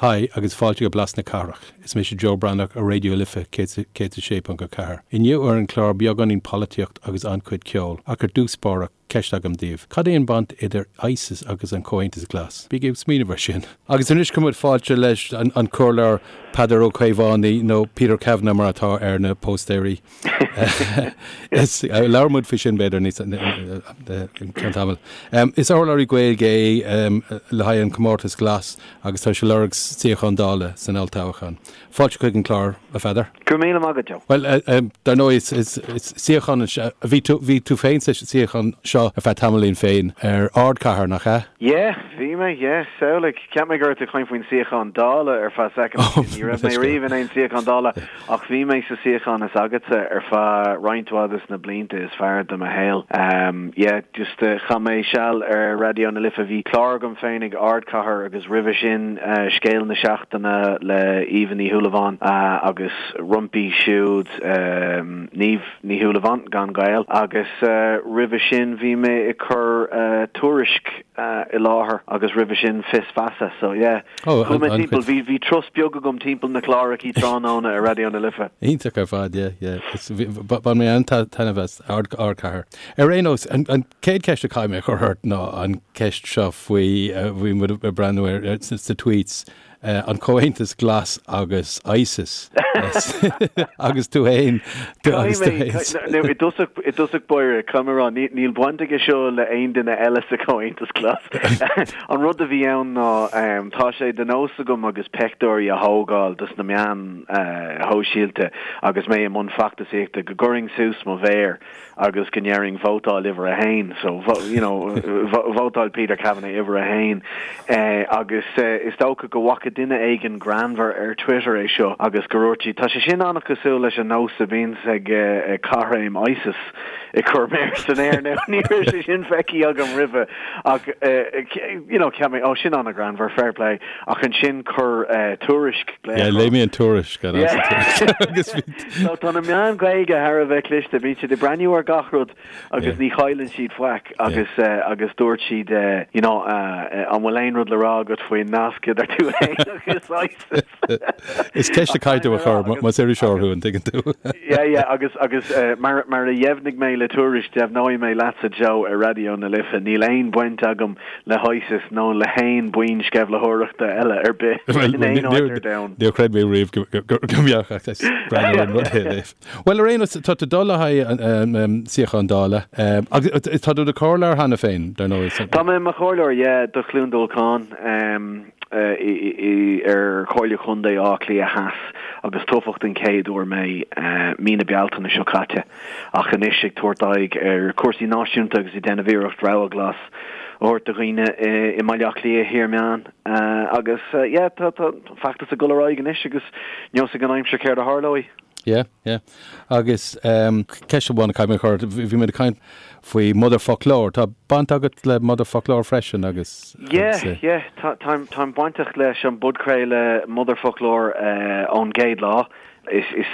Haigh agus fáilte go Blas na Cathrach. Is mise Joe Breathnach ar Raidió Life 106.4. Inniu ar an chlár beagáinín polaitíocht agus an-chuid ceoil, ach ar dtús báire, ceist agam daoibh. Cad é an baint idir ISIS agus an Comhaontas Glas? Bígí ag smaoineamh ar sin. Agus anois cuirimid fáilte leis an Comhairleoir Peadar Ó Caomhánaigh, nó Peter Kavanagh mar atá ar na póstaeirí. Labhróidh muid faoi sin b'fhéidir níos i gceann tamaill. Is urlabhraí Gaeilge é le haghaidh an Comórtas Glas agus tá sé ag lorg suíochán Dála san olltoghchán. Fáilte chuig an chlár, a Pheadair. Go raibh míle maith agat, Joe. Bhuel, dar ndóigh, is suíochán, bhí tú, bhí tú féin sa suíochán seo ar feadh tamaillín féin ar Ardchathair, nach ea? Yeah, bhí mé, yeah, samhlaigh. Cheap mé go raibh tú ag caint faoin suíochán Dála ar feadh soicind. Ní raibh mé riamh in aon suíochán Dála. Ach bhí mé sa suíochán is agatsa ar feadh roinnt mhaith des na blianta is fearr de mo shaol. Yeah, just chaith mé seal ar Raidió na Life, bhí clár agam féin ag Ardchathair agus roimhe sin Scéal na Seachtaine le Aoibhe Ní Shúilleabháin agus roimpi siúd Niamh Ní Shúilleabháin, gan gaol, agus roimhe sin bhí mé ag cur Tuairisc i láthair agus roimhe sin Fios Feasa. So yeah. Oh, Chuaigh mé timpeall, bhí, bhí turas beag agam timpeall na clárachaí tráthnóna ar Raidió na Life. Iontach ar fad, yeah, yeah. Is, bhí, bhain mé an-taitneamh as Ard, Ardchathair. Ar aon nós, an, an chéad cheist a chaithfidh mé a chur ort ná an ceist seo faoi, bhí muid ag breathnú ar, ar, sa tweets, an Comhaontas Glas agus ISIS. Agus tú fhéin, agus tú fhéin. Now, i dtosach, i dtosach báire, caithfidh mé a rá, níl baint aige seo le aon duine eile sa Chomhaontas Glas. An rud a bhí ann ná, tá sé de nós agam agus peictiúirí a thógáil dos na meáin shóisialta agus mé i mbun feachtasaíochta, go gcuirfinn suas mo mhéar agus go ndéarfainn vótáil uimhir a haon. So, you know, vótáil Peter Kavanagh uimhir a haon. Agus is dócha go bhfaca duine éigin greannmhar ar Twitter é seo agus go ndúirt siad, tá sé sin an-chosúil leis an nós a bhíonns ag caithréim ISIS ag cur méar san aer. Now, ní raibh sé sin feicthe agam roimhe. Ach, you know, cheap mé, oh, sin an-ghreannmhar, fair play. Ach ansin chuir Tuairisc glaoch orm. Yeah, léigh mé an tuairisc. Agus bhí. So tá na meáin Ghaeilge thar a bheith cliste, bíonn siad ag breathnú ar gach rud agus ní chailleann siad faic agus agus dúirt siad, you know, an bhfuil aon rud le rá agat faoin nasc idir tú féin agus ISIS? Is ceist a chaithfidh tú a chur más iriseoir thú, an dtuigeann tú? Yeah, yeah, agus, agus mar, mar a dheimhnigh mé le Tuairisc, deimhneoidh mé leatsa, Joe, ar Raidió na Life, níl aon bhaint agam le hISIS nó le haon buíon sceimhlitheoireachta eile ar bith in aon áit ar domhan. Níor chreid mé riamh go mbeadh ach is breá liom an rud é léamh. Bhuel, ar aon nós, tá tú ag dul le haghaidh suíochán Dála, agus tá tú i do chomhairleoir cheana féin, dar ndóigh. Tá mé i mo chomhairleoir, yeah, do Chluain Dolcáin. ar Chomhairle Chontae Átha Cliath Theas agus toghadh den chéad uair mé mí na Bealtaine seo caite ach anois ag tabhairt aghaidh ar chúrsaí náisiúnta agus ag déanamh iarracht rogha ghlas a thabhairt do dhaoine i mBaile Átha Cliath Thiar Meán agus yeah tá an feachtas ag dul ar aghaidh anois agus neosfaidh an aimsir céard a tharlóidh. Yeah, yeah. Agus ceist amháin a chaithfidh mé a chur ort, bhí muid ag caint faoi Motherfoclóir, tá baint agat le Motherfoclóir freisin agus. Yeah, yeah, táim táim bainteach leis an bpodchraoladh Motherfoclóir ón gcéad lá. Is is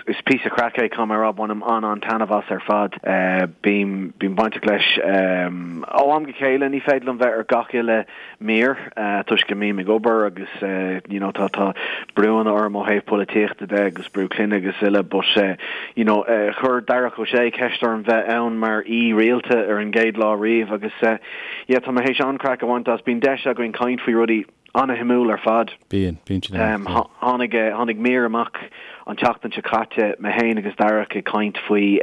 is píosa craic é, caithfidh mé a rá, bainim an-an-taitneamh as ar fad. Bím bím bainteach leis ó am go chéile, ní féidir liom bheith ar gach uile mír toisc go mbím ag obair agus you know tá tá brúanna orm ó thaobh polaitíochta de agus brú clainne agus uile but you know chuir Darach Ó Sé ceist orm bheith ann mar aoi rialta ar an gcéad lá riamh agus yeah tá mé théis an-craic a bhaint as. Bíonn deis againn caint faoi rudaí an-shuimiúil ar fad. Bíonn, bíonn siad ann. Tháinig tháinig mír amach an tseachtain seo caite, mé féin agus Darach ag caint faoi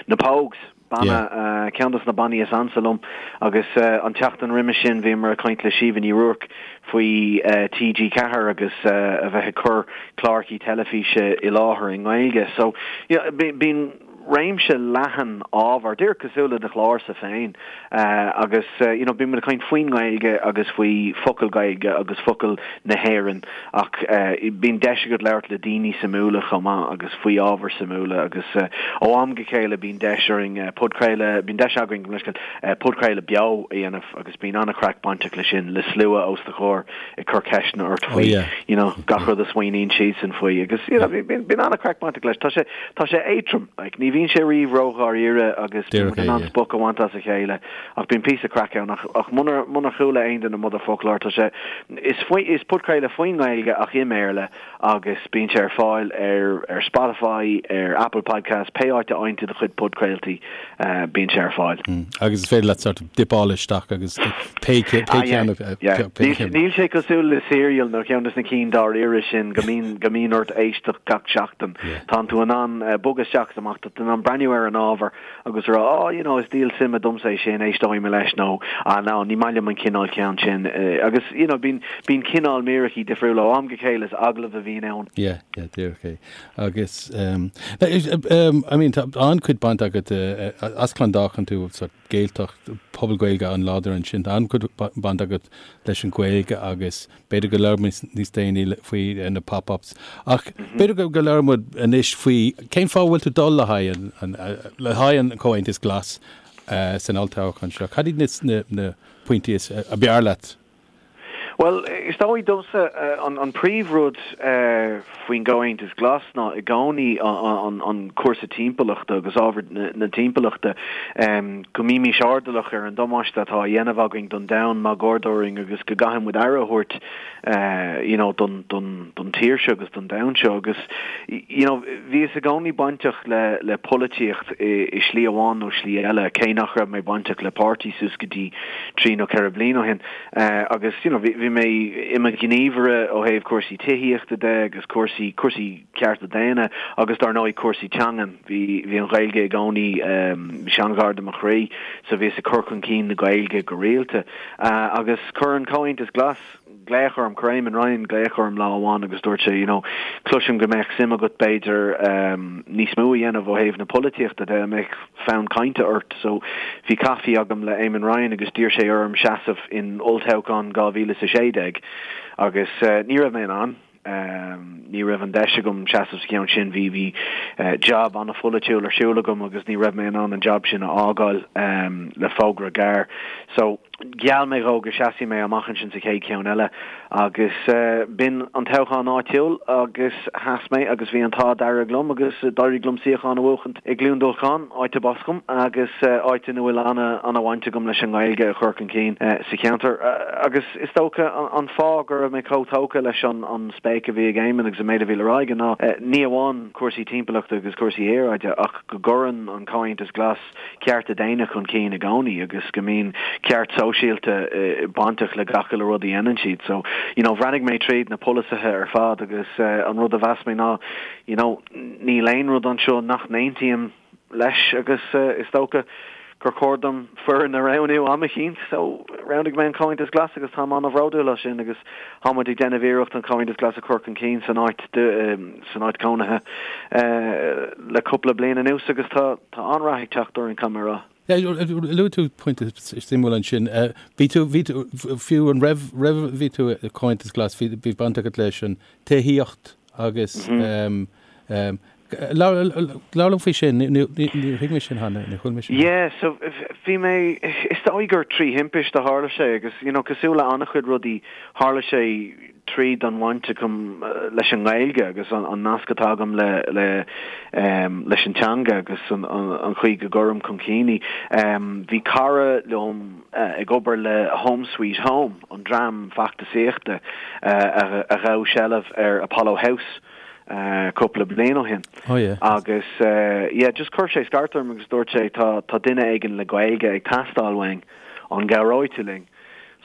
na Pogues. Banna, ceann dos na bannaí is ansa liom agus an tseachtain roimhe sin bhíomar ag caint le Síomha Ní Ruairc faoi TG4 agus a bheith ag cur clárachaí teilifíse i láthair i nGaeilge. So, yeah, bíonn réimse leathan ábhar, díreach cosúil le do chlársa féin agus you know bíonn muid ag caint faoin nGaeilge agus faoi focail Gaeilge agus focail na hÉireann Ach bíonn deis agat labhairt le daoine suimiúla chomh maith agus faoi ábhair suimiúla agus ó am go chéile bíonn deis orainn podchraoladh, bíonn deis againn, gabh mo leithscéal, podchraoladh beo a dhéanamh agus bíonn an-chraic bainteach leis sin, le slua os do chomhair ag cur ceisteanna ort faoi you know gach rud a smaoiníonn siadsan faoi agus you know bíonn an-chraic bainteach leis. Tá sé, tá sé éadrom, like ní bhíonn. bhíonn sé riamh ró-dháiríre agus bíonn muid in ann spoch a bhaint as a chéile ach bíonn píosa craic ann ach ach munar munar chuala aon duine Motherfoclóir tá sé is faoi is podchraoladh faoin nGaeilge ach i mBéarla agus bíonn sé ar fáil ar ar Spotify, ar Apple Podcasts, pé áit a fhaigheann tú do chuid podchraoltaí, bíonn sé ar fáil. Agus is féidir leat sort of dipáil isteach agus pé ceann a. Níl sé cosúil le Serial nó ceann de na cinn dáiríre sin go mbíonn go mbíonn ort éisteacht gach seachtain. Tánn tú in ann bogadh isteach is amach, tá tú in ann breathnú ar an ábhar agus rá oh you know is díol suime domsa é sin, éisteoidh mé leis nó ah no ní maith liom an cineál ceann sin agus you know bíonn bíonn cineál míreachaí difriúla ó am go chéile is agallamh a bhíonn ann. Yeah, yeah, díreach é. Agus um, um, I mean tá an-chuid baint agat uh, as Clondalkin tú sort Gaeltacht, pobal Gaeilge an-láidir ansin, tá an-chuid baint agat leis an Ghaeilge agus B'fhéidir go labhróidh muid níos déanaí faoi na pop-ups. Ach b'fhéidir go labhróidh muid anois faoi cén fáth a bhfuil tú ag dul le haghaidh an, le haghaidh an Comhaontas Glas san olltoghchán seo. Cad iad na, na pointí is, ab fhearr leat? Bhuel, is dóigh domsa an príomhrud faoin gComhaontas Glas ná i gcónaí an cúrsa timpeallachta agus ábhar na timpeallachta. Go mbímís airdeallach ar an damáiste atá á dhéanamh againn don domhan máguaird orainn agus go gcaithfidh muid aire a thabhairt you know don don don tír seo agus don domhan seo agus you know bhíos i gcónaí bainteach le le polaitíocht i i slí amháin nó slí eile cé nach raibh mé bainteach le páirtí suas go dtí trí nó ceithre bliana ó shin agus you know bhí bhí mé i mo ghníomhaire ó thaobh cúrsaí tithíochta de agus cúrsaí cúrsaí cearta daonna agus dar ndóigh cúrsaí teangan. Bhí bhí an Ghaeilge i gcónaí bhí sé an-ghar do mo chroí so bhíos ag cur chun cinn na Gaeilge go rialta. Agus chuir an Comhaontas Glas glaoch orm, chuir Eamon Ryan glaoch orm lá amháin agus dúirt sé you know cloisim go mbeadh suim agat b'fhéidir níos mó a dhéanamh ó thaobh na polaitíochta de, an mbeadh fonn cainte ort? So bhí caife agam le Eamon Ryan agus d'iarr sé orm seasamh in olltoghchán 2016 agus ní raibh mé in ann. Ní raibh an deis agam seasamh sa cheann sin. Bhí bhí jab an-pholaitiúil ar siúl agam agus ní raibh mé in ann an jab sin a fhágáil le fógra gearr. So, gheall mé dhó go seasfaidh mé amach ansin sa chéad cheann eile agus b'in an toghchán áitiúil agus sheas mé agus bhí an t-ádh dearg liom agus d'éirigh liom suíochán a bhuachaint i gCluain Dolcáin, áit arb as dom agus áit ina bhfuil an-bhaint agam leis an nGaeilge a chur chun cinn sa cheantar. Agus is dócha an fáth go raibh mé chomh tógtha leis an spéic a bhí ag Éamon agus an méid a bhí le rá aige ná ní amháin cúrsaí timpeallachta agus cúrsaí aeráide ach go gcuireann an Comhaontas Glas cearta daonna chun cinn i gcónaí agus go mbíonn ceart sóisialta bainteach le gach uile rud a dhéanann siad. So, you know, bhreathnaigh mé tríd na polasaithe ar fad agus an rud a mheas mé ná, you know, níl aon rud anseo nach n-aontaím leis agus is dócha gur chóir dom foireann a roghnú am eicínt. So, roghnaigh mé an Comhaontas Glas agus táim an-bhródúil as sin agus tá muid ag déanamh iarracht an Comhaontas Glas a chur chun cinn san áit san áit cónaithe le cúpla bliain anuas agus tá tá an-rath ag teacht orainn, caithfidh mé a rá. Luaigh tú pointe suimiúil ansin. Bhí tú, bhí tú, fiú an raibh, raibh, bhí tú i Comhaontas Glas, bhí, bhí baint agat leis an tithíocht agus labhair liom faoi sin, níor thuig mé sin cheana, níor chuala mé sin. Yeah, so bhí mé, is dóigh gur trí thimpist a tharla sé agus, you know, cosúil le an-chuid rudaí, tharla sé tríd an bhaint agam leis an nGaeilge agus an nasc atá agam le le leis an teanga agus an an chaoi go gcuirim chun cinn í. Bhí cara liom ag obair le Home Sweet Home, an dream feachtasaíochta a ghabh seilbh ar Apollo House cúpla bliain ó shin. Oh yeah. Agus yeah, just chuir sé scairt orm agus dúirt sé tá tá duine éigin le Gaeilge ag teastáil uainn, an gcabhróidh tú linn?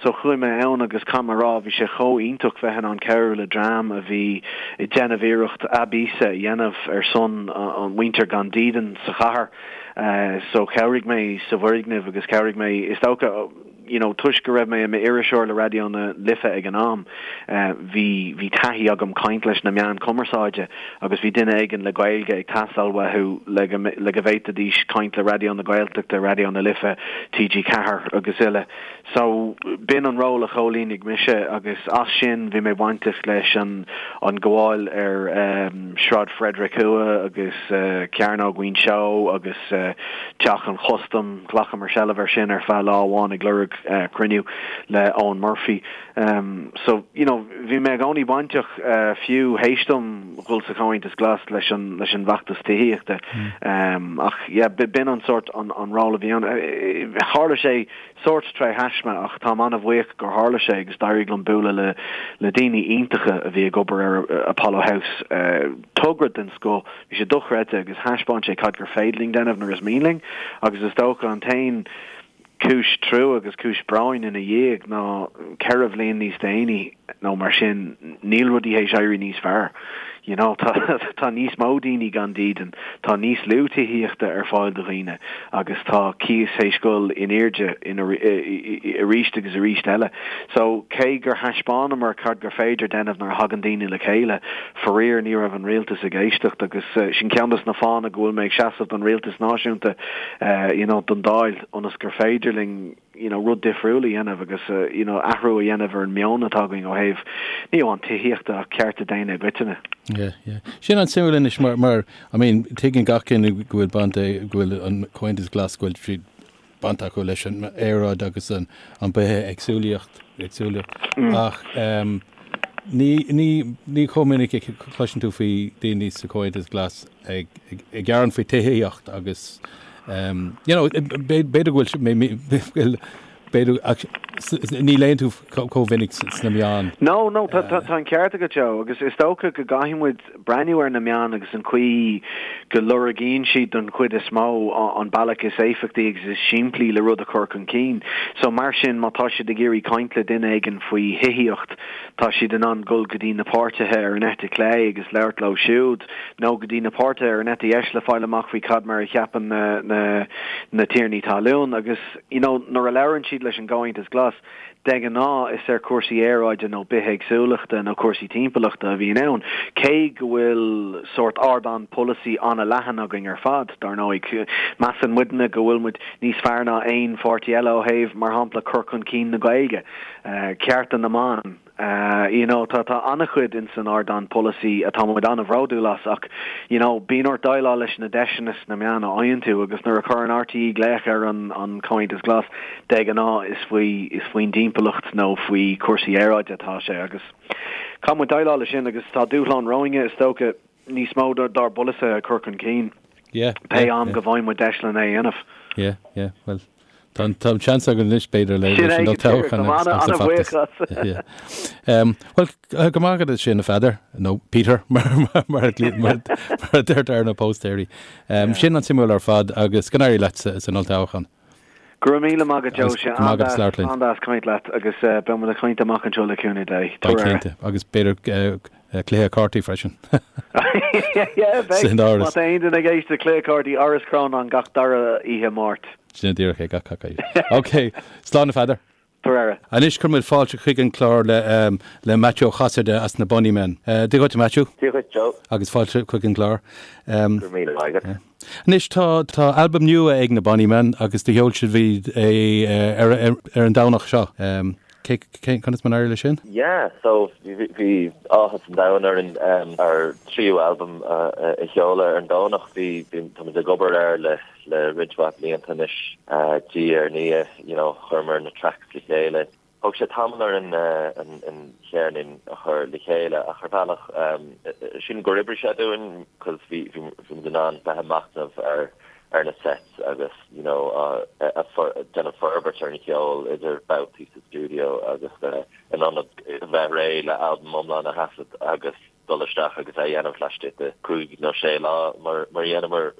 So chuaigh mé ann agus caithfidh mé a rá, bhí sé chomh iontach bheith in ann cabhrú le dream a bhí ag déanamh iarracht a bpíosa a dhéanamh ar son an mhuintir gan dídean sa chathair. So chabhraigh mé sa bhfoirgneamh agus chabhraigh mé, is dócha, you know, toisc go raibh mé i m'iriseoir le Raidió na Life ag an am, bhí, bhí taithí agam caint leis na meáin chumarsáide agus bhí duine éigin le Gaeilge ag teastáil uathu le go, le go bhféadfaidís caint le Raidió na Gaeltachta, Raidió na Life, TG4 agus uile. So, b'in an ról a chomhlíonaigh mise agus as sin bhí mé bainteach leis an an gabháil ar Sráid Frederick Thuaidh agus Cearnóg Mhuinseo agus Teach an Chustaim, ghlacamar seilbh air sin ar feadh lá amháin ag lorg. cruinniú le Eoghan Murphy. So, you know, bhí mé i gcónaí bainteach, fiú théis dom dhul sa Chomhaontas Glas leis an, leis an bhfeachtas tithíochta. Ach, yeah, b'in an sórt, an, an ról a bhí ann. Tharla sé sórt tré thaisme ach táim an-bhuíoch gur tharla sé agus d'éirigh liom bualadh le, le daoine iontacha a bhí ag obair ar Apollo House. Togra den scoth, bhí sé dochreidte agus thaispeáin sé cad gur féidir linn déanamh nuair is mian linn agus is dócha an t-aon Cúis trua agus cúis bróin ina dhiaidh ná 4 bhliain níos déanaí nó mar sin, níl rudaí théis éirí níos fearr. You know, tá tá níos mó daoine gan dídean, tá níos lú tithíochta ar fáil do dhaoine agus tá cíos théis dhul in airde in arís agus arís eile. So, cé gur thaispeánamar cad gur féidir déanamh nuair a thagann daoine le chéile, faraor ní raibh an rialtas ag éisteacht agus sin ceann dos na fáthanna go bhfuil mé ag seasamh don rialtas náisiúnta. you know, don Dáil ionas gur féidir linn, you know, rud difriúil a dhéanamh agus, you know, athrú a dhéanamh ar an meon atá againn ó thaobh, ní amháin tithíochta ach cearta daonna i gcoitinne. Yeah, yeah. Sin an-suimiúil anois mar, mar, I mean, tuigeann gach duine go bhfuil baint, go bhfuil an Comhaontas Glas, go bhfuil siad baint acu leis an aeráid agus an, an bithéagsúlaíocht, éagsúlaíocht. Ach, um, ní, ní, ní chomh minic a chloiseann tú faoi daoine sa Chomhaontas Glas ag gearán faoi tithíocht agus you know b'fhéidir go bhfuil b'fhéidir ach ní léann tú chomh minic sna meáin. No, no, tá tá an ceart agat Joe agus is dócha go gcaithfidh muid breathnú ar na meáin agus an chaoi go lorgaíonn siad don chuid is mó an bealach is éifeachtaí agus is simplí le rud a chur chun cinn. So mar sin má tá siad ag iarraidh caint le duine éigin faoi thithíocht tá siad in ann dul go dtí na páirtithe ar an eite chlé agus labhairt leo siúd. nó go dtí na páirtithe ar an eite dheis le fáil amach faoi cad mar a cheapann na na na tiarnaí talún agus you know nuair a labhrann siad leis an gComhaontas Glas de ghnáth is ar chúrsaí aeráide nó bithéagsúlachta nó cúrsaí timpeallachta a bhíonn ann cé go bhfuil sórt ardán polasaí an-leathan againn ar fad dar ndóigh measann muidne go bhfuil muid níos fearr ná aon pháirtí eile ó thaobh mar shampla cur chun cinn na Gaeilge cearta na mban You know, tá, tá an-chuid ins an ardán polasaí atá muid an-bhródúil as ach, you know, bíonn ort déileáil leis na deiseanna sna meáin a fhaigheann tú agus nuair a chuireann RTÉ glaoch ar an, an Comhaontas Glas, de ghnáth is faoi, is faoin dtimpeallacht nó faoi chúrsaí aeráide atá sé agus caithfidh muid déileáil leis sin agus tá dúshlán romhainne, is dócha, níos mó dár bpolasaithe a chur chun cinn Yeah, pé yeah, am yeah. go bhfaigheann muid deis lena é a dhéanamh. Yeah, yeah, well, tá an tá an seans againn anois b'fhéidir le leis an olltoghchán agus agus an feachtas. Yeah. Um, well, go maith agat sin a Pheadair, nó Peter mar mar mar a mar mar a deirtear ar na póstaeirí. Um, sin an-suimiúil ar fad agus go n-éirí leat sa san olltoghchán. Go raibh míle maith agat Joe, sé an-deas caint leat agus beidh muid ag caint amach anseo le cúnamh Dé. Beidh cinnte, agus b'fhéidir cluiche cártaí freisin. Yeah, beidh. San áras. Má tá aon duine ag éisteacht, cluiche cártaí Áras Chrónáin gach dara oíche Máirt. Sin díreach é gach gach oíche. Ok, slán a Pheadair. Tabhair aire. Anois cuirfidh muid fáilte chuig an clár le le Maitiú Ó Casaide as na Bonnymen. Dia dhuit a Maitiú. Dia dhuit Joe. Agus fáilte chuig an gclár. Go raibh míle maith agat. Anois tá tá albam nua ag na Bonnymen agus do sheol sibh é ar ar an Domhnach seo. Cé cé conas mar a d'éirigh leis sin? Yeah, so bhí bhí áthas an domhain orainn ár tríú albam a sheoladh ar an Domhnach. Bhí bhí táimid ag obair air le le roinnt mhaith blianta anois, diaidh ar ndiaidh, you know, chuireamar na tracks le chéile. Thóg sé tamall orainn an cheirnín a chur le chéile ach ar bhealach, sílim gur oibrigh sé dúinn cos bhí bhí muid in ann bheith ag machnamh ar ar na sets agus, you know, déanamh forbairt ar an cheol idir babhtaí sa stiúideo agus in ionad bheith réidh le albam iomlán a thaifead agus dul isteach agus é a dhéanamh laistigh de chúig nó sé lá mar a dhéanamar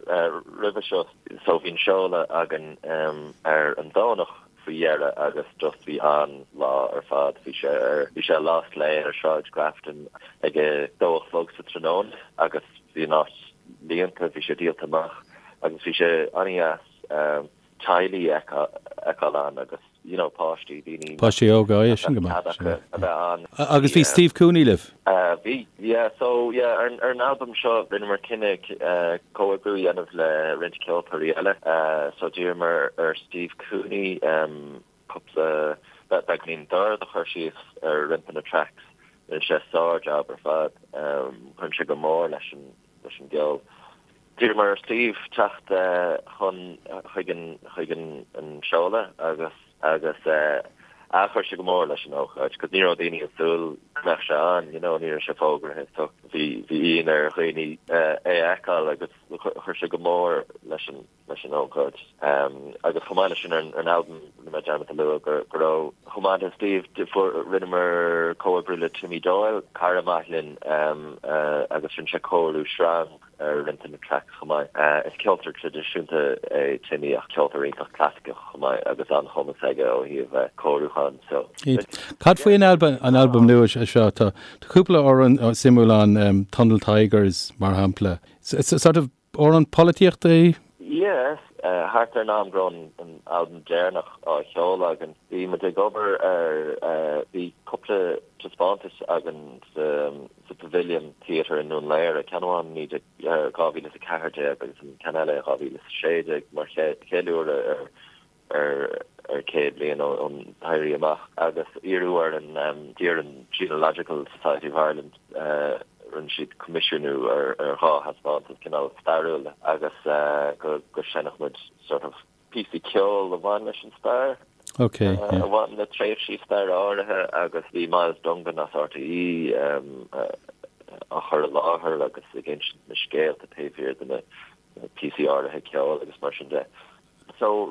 roimhe seo. So bhí an seoladh againn ar an Domhnach faoi dheireadh agus just bhí an-lá ar fad. Bhí sé ar, bhí sé i Lost Lane ar Sráid Grafton ag a dó a chlog sa tráthnóna agus bhí an áit líonta, bhí sé díolta amach agus bhí sé an-dheas teaghlaigh a fheiceáil ann agus you know páistí, daoine Páistí óga, yeah, sin go maith. cead acu a bheith ann. Agus bhí Steve Cooney libh? Bhí, yeah. So yeah, ar an albam seo rinneamar cinneadh comhoibriú a dhéanamh le roinnt ceoltóirí eile. So d'iarramar ar Steve Cooney cúpla beagáinín dord a chur síos ar roinnt de na tracks. Rinne sé sár-jab ar fad. Chuir sé go mór leis an leis an gceol. D'iarramar ar Steve teacht chun chuig an chuig an seoladh agus. Agus ah chuir sé go mór leis an ócáid, 'cause ní raibh daoine ag súil go mbeadh sé ann, you know, ní raibh sé fógraithe so bhí bhí ionadh ar dhaoine é a fheiceáil agus chuir sé go mór leis an leis an ócáid. Agus chomh maith leis sin ar an albam, rinne mé dearmad a lua go go raibh, chomh maith le Steve, fuair rinneamar comhoibriú le Timmy Doyle, cara maith linn, agus rinne sé cóiriú sreang ar roinnt de na tracks chomh maith. Is ceoltóir traidisiúnta é Timmy ach ceoltóir iontach clasaiceach chomh maith agus an-chumas aige ó thaobh cóiriúcháin so. Cad faoi an albam an albam nua seo? Tá cúpla amhrán suimiúil ann, Tunnel Tigers mar shampla. Sort of amhrán polaitíochta é? Yes, thart ar an am go raibh an albam deireanach á sheoladh againn, bhí muid ag obair ar, bhí cúpla taispeántas againn sa sa Pavilion Theatre i nDún Laoghaire, ceann amháin i 2014 agus an ceann eile i 2016 mar cheiliúradh ar ar 100 bliain ón Éirí Amach agus iarradh ar an d'iarr an Genealogical Society of Ireland rinne siad coimisiúnú ar dhá thaispeántas cineál stairiúil agus go go seinnfeadh muid sort of píosaí ceoil a bhain leis an stair, Ok, yeah. a bhain le tréimhsí staire áirithe agus bhí Myles Dungan as RTÉ á chur i láthair agus ag insint na scéalta taobh thiar de na píosaí áirithe ceoil agus mar sin de. So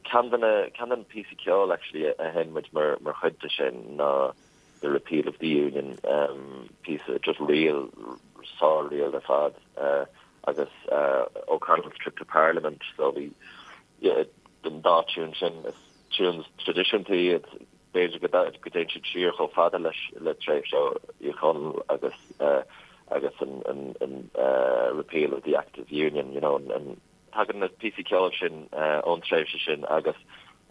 ceann de na ceann de na píosaí ceoil actually a sheinn muid mar mar chuid de sin ná The Repeal of the Union, píosa just ríl, sár-ríl ar fad. agus O'Connell's Trip to Parliament so bhí an dá tiún sin, is tunes traidisiúnta iad, b'fhéidir go dtéann siad siar chomh fada leis le tréimhse Uí Chonaill agus agus an an Repeal of the Act of Union, you know, an tagann na píosaí ceoil sin ón tréimhse sin agus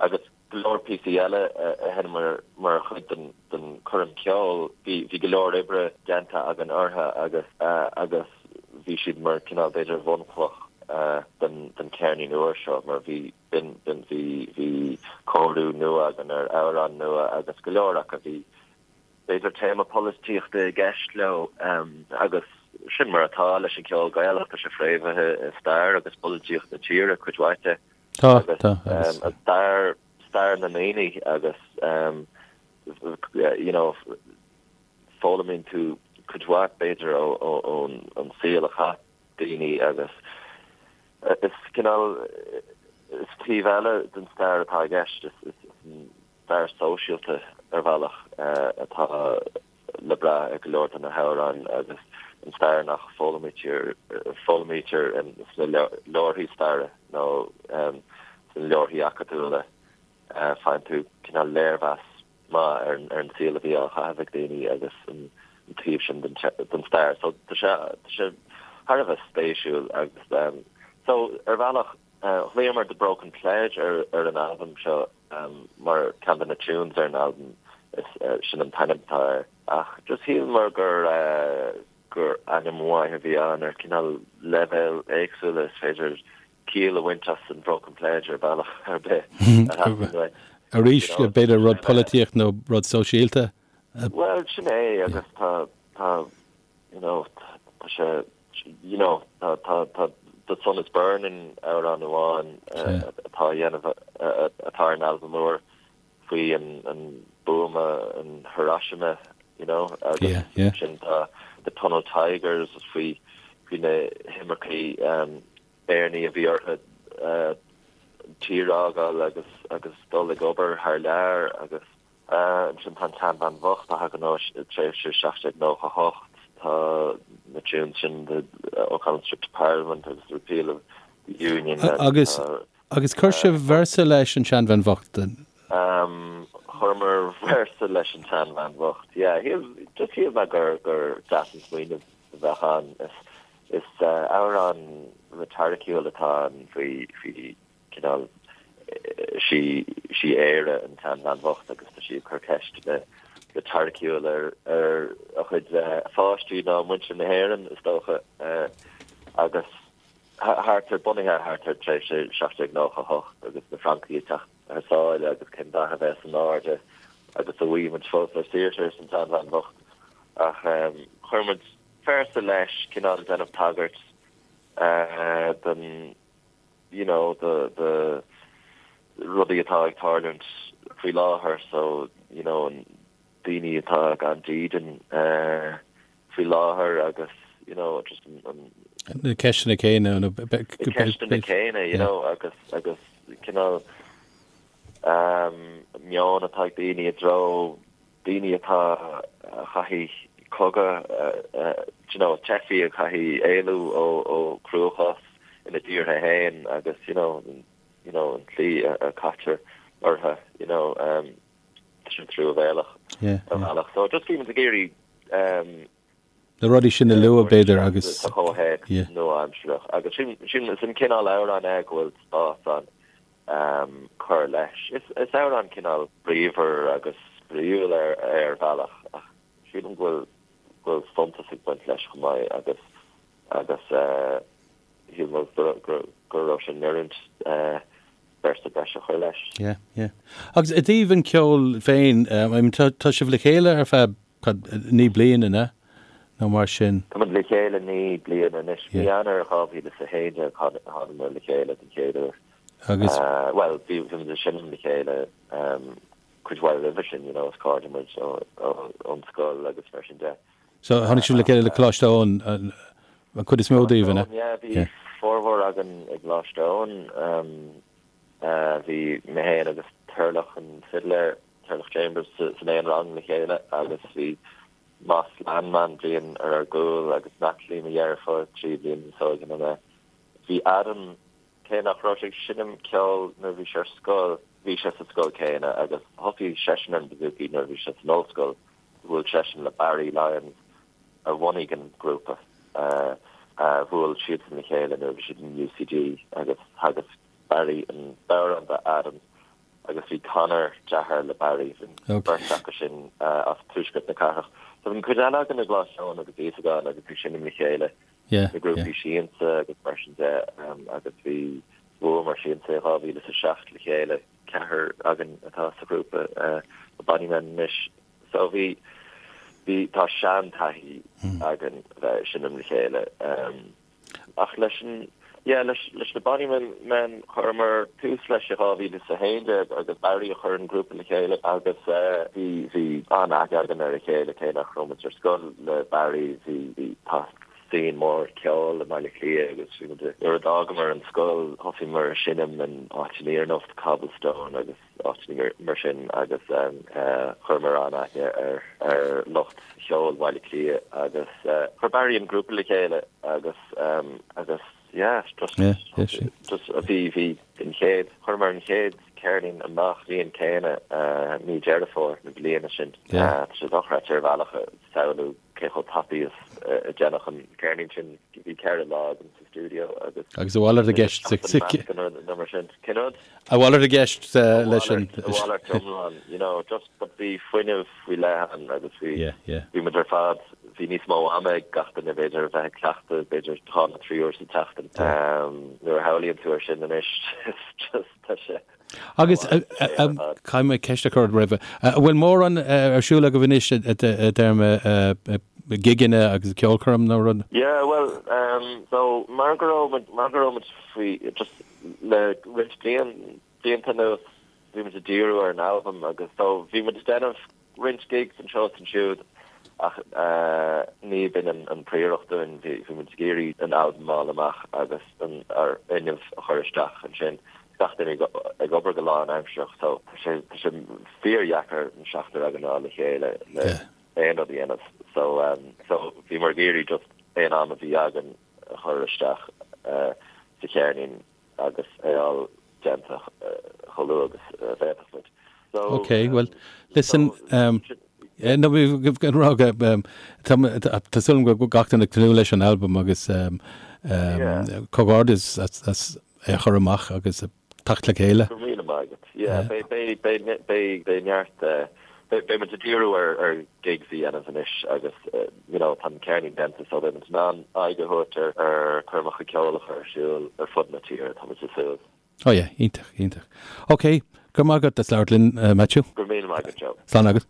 agus go leor píosaí eile a sheinneamar mar chuid den choirm ceoil. Bhí go leor oibre déanta againn orthu agus agus bhí siad mar cineál b'fhéidir bhunchloch den cheirnín úr seo mar bhí b'in bhí bhí cóiriú nua againn ar amhráin nua agus go leor acu bhí b'fhéidir téama polaitíochta i gceist leo agus sin mar atá leis an cheol Gaelach, tá sé fréamhaithe i stair agus polaitíocht na tíre cuid mhaith de. Tá, tá, agus. Stair, stair na ndaoine agus you know foghlaimíonn tú cuid mhaith b'fhéidir ón ón saol a chaith daoine agus is cineál is taobh eile den stair atá i gceist, is is an stair sóisialta ar bhealach atá le brath ag go leor de na hamhráin agus an stair nach foghlaimítear foghlaimítear sna leabharthaí staire nó sna leabharthaí acadúla. Faigheann tú cineál léirmheas maith ar ar an saol a bhí á chaitheamh ag daoine agus an taobh sin den den stair. So tá sé tá sé thar a bheith spéisiúil agus so ar bhealach ghlaomar The Broken Pledge ar ar an albam seo mar ceann de na tunes ar an albam is sin an t-ainm atá air. Ach just shíleamar gur gur ainm mhaith a bhí ann ar cineál leibhéil éagsúla is féidir ciall a bhaint as an Broken Pledge ar bhealach ar bith a theastaíonn uait. Arís, b'fhéidir rud polaitíocht nó rud sóisialta? Bhuel, sin é agus tá tá you know, tá sé, you know, tá, tá, tá The Sun is Burning amhrán amháin atá a dhéanamh, atá ar an albam úr faoi an, an buama in Hiroshima, you know, agus ansin tá The Tunnel Tigers faoi, faoi na himircigh Éireannaigh a bhí orthu an tír a fhágáil agus, agus dul ag obair thar lear agus. Ansin tá an tSeanbhean Bhocht a thagann ó tréimhse 1798. Tá na tunes sin The O'Connell's Trip to Parliament agus The Repeal of the Union agus. Agus chuir sibh véarsa leis an tSeanbhean Bhocht? Chuireamar véarsa leis an tSeanbhean Bhocht, yeah. Just shíl mé gur gur deas an smaoineamh a bheadh ann. Is amhrán reitoriciúil atá ann faoi faoi cineál, sí sí Éire an tseanbhean bhocht agus tá sí ag cur ceisteanna reitoriciúil ar ar a chuid pháistí nó muintir na hÉireann is dócha agus thart ar bunaithe thart ar tréimhse 1798 agus na Francaigh ag teacht thar sáile agus cén dath a bheas in airde agus an bhfaighidh muid fós ár saoirse arsa an tseanbhean bhocht ach chuir muid véarsa leis cineál déanamh tagairt don you know, do, do rudaí atá ag tarlúint. faoi láthair so you know an daoine atá gan dídean faoi láthair agus you know just an Na ceisteanna céanna nó Na ceisteanna céanna you know agus agus cineál meon atá ag daoine i dtreo daoine atá a chaithfidh cogadh you know teifigh a chaithfidh éalú ó ó chruachás ina dtíortha féin agus you know you know an tslí a caitear orthu you know tá sin truamhéalach ar bhealach. So just bhí muid ag iarraidh Na rudaí sin a lua b'fhéidir agus sa chomhthéacs nua-aimsearach agus sin sin is an cineál amhrán é go bhfuil spás ann cur leis. Is is amhrán cineál bríomhar agus spraíúil ar ar bhealach ach sílim go bhfuil go bhfuil suntas ag baint leis chomh maith agus agus shíl mé go raibh sé in oiriúint véarsa breise a chur leis. Yeah, yeah. Agus i dtaobh an ceoil féin, I mean, tá, tá sibh le chéile ar feadh, cad, 9 bliana, an ea? Nó mar sin. Tá muid le chéile 9 bliana anois. Mí Eanáir 2011 thánamar le chéile den chéad uair. Agus. Bhuel, bhí, bhí muid ag seinm le chéile cuid mhaith roimhe sin, you know, is cairde muid ón scoil agus mar sin de. So, tháinig sibh le chéile le Coláiste Eoin, an chuid is mó daoibh, an ea? Yeah, bhí formhór againn i gColáiste Eoin. Bhí mé féin agus Turlough an fidléir, Turlough Chambers, san aon rang le chéile agus bhí Moss Landman bliain ar ár gcúl agus Natalie, mo dheirfiúr, 3 bliana níos óige ná mé. Bhí Adam, cé nach raibh sé ag seinm ceoil nuair a bhí sé ar scoil, bhí sé sa scoil céanna agus thosaigh seisean ar an bouzouki nuair a bhí sé san ollscoil. Bhuail seisean le Barry Lyons a bhunaigh an grúpa. Bhuail siadsan le chéile nuair a bhí siad in UCD agus theagasc Barry an bodhrán do Adam agus bhí Conor, deartháir le Barry, bhí an bheirt acu sin as tuaisceart na cathrach. So bhí an cuid eile againn i gColáiste Eoin agus Íosagáin agus ag seinm le chéile i grúpaí siansa agus mar sin de agus bhí bhuamar siansa i 2007 le chéile. Ceathrar againn atá sa ghrúpa The Bonnymen anois. So bhí, bhí, tá sean-taithí againn a bheith ag seinm le chéile. Ach leis an, yeah, leis, leis na Bonnymen men, chuireamar tús leis i 2011 agus Barry a chuir an grúpa le chéile agus bhí, bhí an-aithne againn ar a chéile cé nach raibh muid ar scoil le Barry, bhí, bhí, tá scene mór ceoil i mBaile Átha Cliath agus bhí muid, nuair a d'fhágamar an scoil thosaíomar ag seinm in áiteanna ar nós Cobblestone agus áiteanna mar sin agus chuireamar an-aithne ar ar lucht cheoil Bhaile Átha Cliath agus chuir Barry an grúpa le chéile agus agus yeah just just bhí bhí an chéad chuireamar an chéad ceirnín amach an bhliain céanna mí Deireadh Fómhair na bliana sin. Tá sé dochreidte ar bhealach a samhlú cé chomh tapaidh is a deineadh an ceirnín sin. Bhí 4 lá agam sa stiúideo agus. Agus a mhalairt i gceist sa. Nó mar sin. Cén rud? A mhalairt i gceist leis an. A mhalairt iomlán, you know, just but bhí fuinneamh faoi leith ann agus bhí. Yeah, yeah. Bhí muid ar fad, bhí níos mó ama ag gach duine b'fhéidir a bheith ag cleachtadh, b'fhéidir dhá nó trí uair sa tseachtain. Nuair a shamhlaíonn tú ar sin anois, it's just, tá sé. Agus caithfidh mé ceist a chur ort roimhe. An bhfuil mórán ar siúl agaibh anois i dtéarma gigeanna agus ceolchoirm nó rud? Yeah, bhuel, so mar go raibh muid, mar go raibh muid faoi, just le roinnt bliain, blianta anuas, bhí muid ag díriú ar an albam agus so bhí muid ag déanamh roinnt gigs anseo is ansiúd ach ní b'in an príoracht dúinn, bhí muid ag iarraidh an albam a fháil amach agus an ár bhfuinneamh a chur isteach ansin. Gach duine ag obair go lánaimsearach so tá sé tá sé fíordheacair an seachtar againn a fháil le chéile le aon rud a dhéanamh so so bhíomar ag iarraidh just aon am a bhí againn a chur isteach sa cheirnín agus é a fháil déanta chomh luath agus a bhféadfadh muid. So, Ok, well, listen, um, no, bhí rá go, um, tá tá súil agam go gach duine ag tnúth leis an albam agus um, um, Yeah. comhghairdeas as, as é a chur amach agus teacht le chéile. Go raibh míle maith agat. Yeah, beidh, beidh, beidh, beidh, beidh neart, eh, beidh, beidh muid ag díriú ar, ar gigs a dhéanamh anois agus, eh, you know, tá an ceirnín déanta so beidh muid in ann aghaidh a thabhairt ar, ar choirmeacha ceoil a chur ar siúl ar fud na tíre, tá muid ag súil. Oh yeah, iontach, iontach. Ok, go raibh maith agat as labhairt linn, Maitiú. Go raibh míle maith agat, Joe. Slán agat.